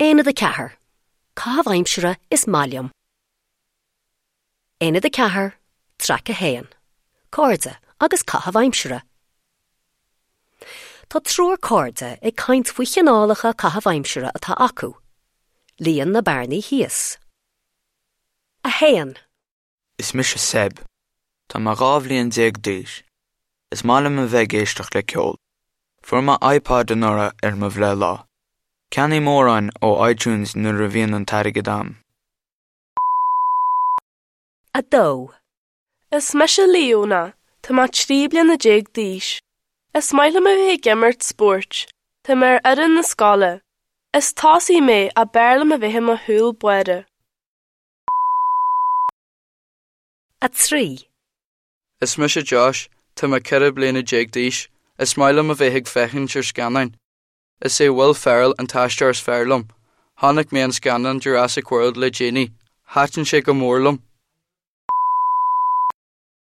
Aonad 4, Caitheamh aimsire is maith liom. Aonad 4, Traic 1, Cairde agus caitheamh aimsire. Tá triúr cairde ag caint faoi chineálacha caitheamh aimsire atá acu. Líon na bearnaí thíos. 1. Is mise Seb. Tá mé 12 bhliain d'aois. Is maith liom a bheith ag éisteacht le ceol. Fuair mé iPod anuraidh ar mo bhreithlá. Ceannaím amhráin ó iTunes nuair a bhíonn an t-airgead a'm. 2. Is mise Leona. Tá mé 13 bliana d'aois. Is maith liom a bheith ag imirt spóirt. Tá mé ar fhoireann na scoile. Is tosaí mé ach b'fhearr liom a bheith i mo chúl báire. 3. Is mise Josh, tá mé 14 bliana d'aois. Is maith liom a bheith ag féachaint ar scannáin. Is é Will Ferrell an t-aisteoir is fearr liom. Chonaic mé an scannán Jurassic World le déanaí. Thaitin sé go mór liom.